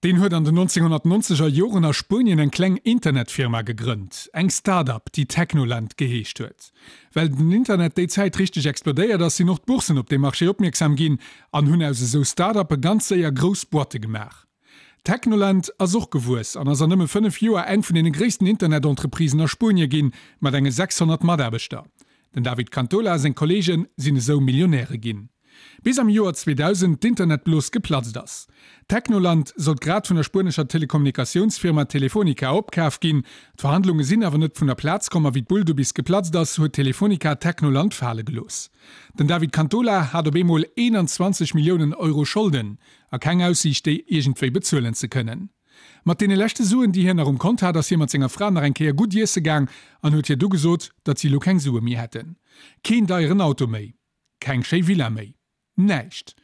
Deen huet an den 1990 er Joren a Spuenien eng kleng Internetfirma gegrënnt, eng Start-up, déi Technoland geheescht huet. Well den Internet déi Zäit richteg explodéiert ass, sinn och d'Boursen op dee Marché opmierksam ginn an hunn aus esou Start-uppe ganz séier grouss Boîte gemaach. Technoland ass och gewuess an ass an nëmme 5 Joer eng vun deene gréissten Internet-Entreprisen a Spuenie ginn, mat enge 600 Mataarbechter. Den David Cantola a seng Kolleege sinn esou Millionäre ginn. Bis am Joer 2000 d'Internetblos geplatzt ass. Technoland sollt grad vun der spuenescher Telekommunikatiounsfirma Telefonica opkaf ginn. D'Verhandlunge sinn awer net vun der Plaz komm a wéi d'Bull du bis geplatzt ass, huet Telefonica Technoland fale gelooss. Den David Cantola hat op eemol 21 Milliounen Euro Scholden a keng Aussiicht déi iergendwéi bezuelen ze kënnen. Mat deene leschte Suen, déi hien nach um Kont hat, ass hie mat senger Fra nach eng Kéier gutt iesse gaang an huet hir du gesot, datt si elo keng Sue méi hätten. Keen deieren Auto méi. Keng schéi Villa méi. Näischt.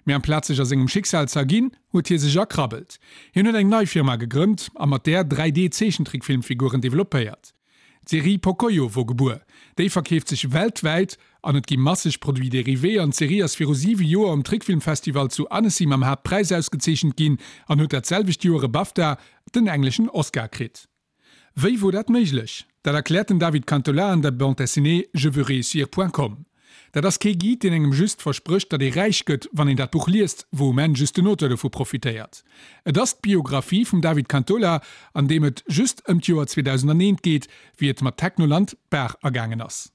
Mee amplaz sech a sengem Schicksal z'erginn, huet hie sech erkrabbelt. Hien huet eng nei Firma gegrënnt a mat där 3D-Zeechentrickfilmfiguren developpéiert. D'Serie Pocoyo wor gebuer. Déi verkeeft sech weltwäit an et gi masseg Produits dérivés an d'Serie ass viru 7 Joer um Trickfilmfestival zu Annecy mam Haaptpräis ausgezeechent ginn an huet dat selwecht Joer e BAFTA, den engleschen Oscar, kritt. Wéi wor dat méiglech? Dat erkläert den David Cantola an der Bande dessinée Je veux réussir point com. Dat ass kee Guide, deen engem just versprécht, datt ee räich gëtt, wann een dat Buch liest, wou um Enn just den Auteur dovu profitéiert. Et ass d'Biographie vum David Cantola, an deem et just ëm d'Joer 2001 geet, wéi et mat Technoland d'Baach agaangen ass.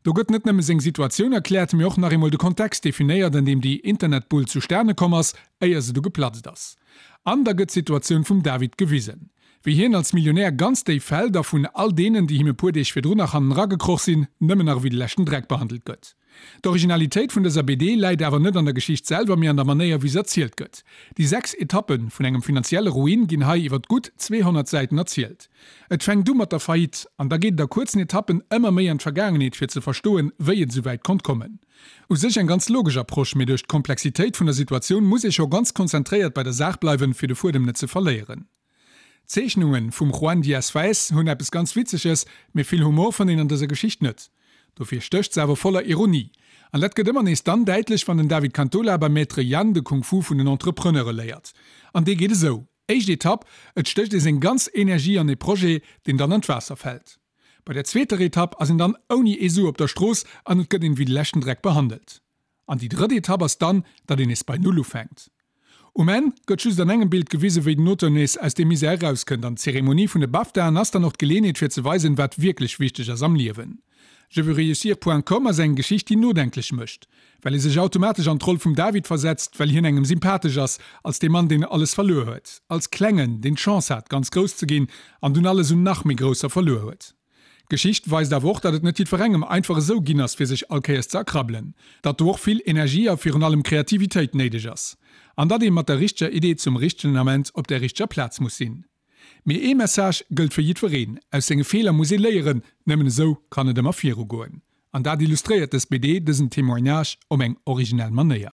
Do gëtt net nëmme seng Situatioun erkläert, mee och nach eemol de Kontext definéiert, an deem déi Internetbull zustane komm ass, éier se du geplatzt ass. An da gëtt d'Situatioun vum David gewisen, wéi hien als Millionär ganz déif fält a vun all deenen, déi him e puer Deeg virdrun nach hannenra gekroch sinn, nëmmen nach ewéi de leschten Dreck behandelt gëtt. D'Originalitéit vun dëser BD läit awer net an der Geschicht selwer, mee an der Manéier wéi se erzielt gëtt. Déi 6 Etappe vun engem finanzielle Ruin ginn hei iwwert gutt 200 Säiten erzielt. Et fänkt u mat der Faillite an da geet et a kuerzen Etappen ëmmer méi an d'Vergaangenheet fir ze verstoen, wéi et esouwäit konnt kommen. U sech eng ganz logesch Approche, mee duerch d'Komplexitéit vun der Situatioun muss ee scho ganz konzentréiert bei der Saach bleiwen, fir de Fuedem net ze verléieren. D'Zeechnunge vum Juan Diaz Faes hunn eppes ganz Witzeges, mee vill Humor fënnt een an dëser Geschicht net. Dofir stécht se awer voller Ironie. An dat gëtt ëmmer nees dann däitlech, wann den David Cantola beim Maître Yann de Kung Fu vun den Entrepreneure léiert. An dee geet esou, Éischt Etapp, Et stécht ee seng ganz Energie an ee Projet, deen dann an d'Waasser fält. Bei der zweeter Etapp ass een dann ouni ee Su op der Strooss an et gëtt een wéi de leschten Dreck behandelt. An déi drëtt Etapp ass dann, datt een nees bei Null ufänkt. Um Enn gëtt just an engem Bild gewisen, wéi den Auteur nees aus deem Misär erauskënnt an d'Zeremonie vun de BAFTAen ass dann och d'Geleenheet fir ze weisen, wat wierklech wichteg ass am Liewen. Je veux réussir point com ass eng Geschicht, déi nodenklech mécht, well ee sech automatesch an d'Roll vum David versetzt, well hien engem sympathesch ass, als dee Mann, deen alles verluer huet, als Klengen, deen d'Chance hat, ganz grouss ze ginn an dunn alles un nach méi Grousser verluer huet. D'Geschicht weist awer och, datt et net jiddwerengem einfach esou ginn ass, fir sech all Kéiers ze erkrabbelen, datt do och vill Energie a virun allem Kreativitéit néideg ass an datt ee mat der richteger Idee zum richtegen Ament op där richteger Plaz muss sinn. Mee ee Message gëllt fir jiddwereen, Aus senge Feeler muss ee léieren, nëmmen esou kann et ëmmer virugoen. An dat illustréiert dës BD, dësen Témoignage op eng originell Manéier.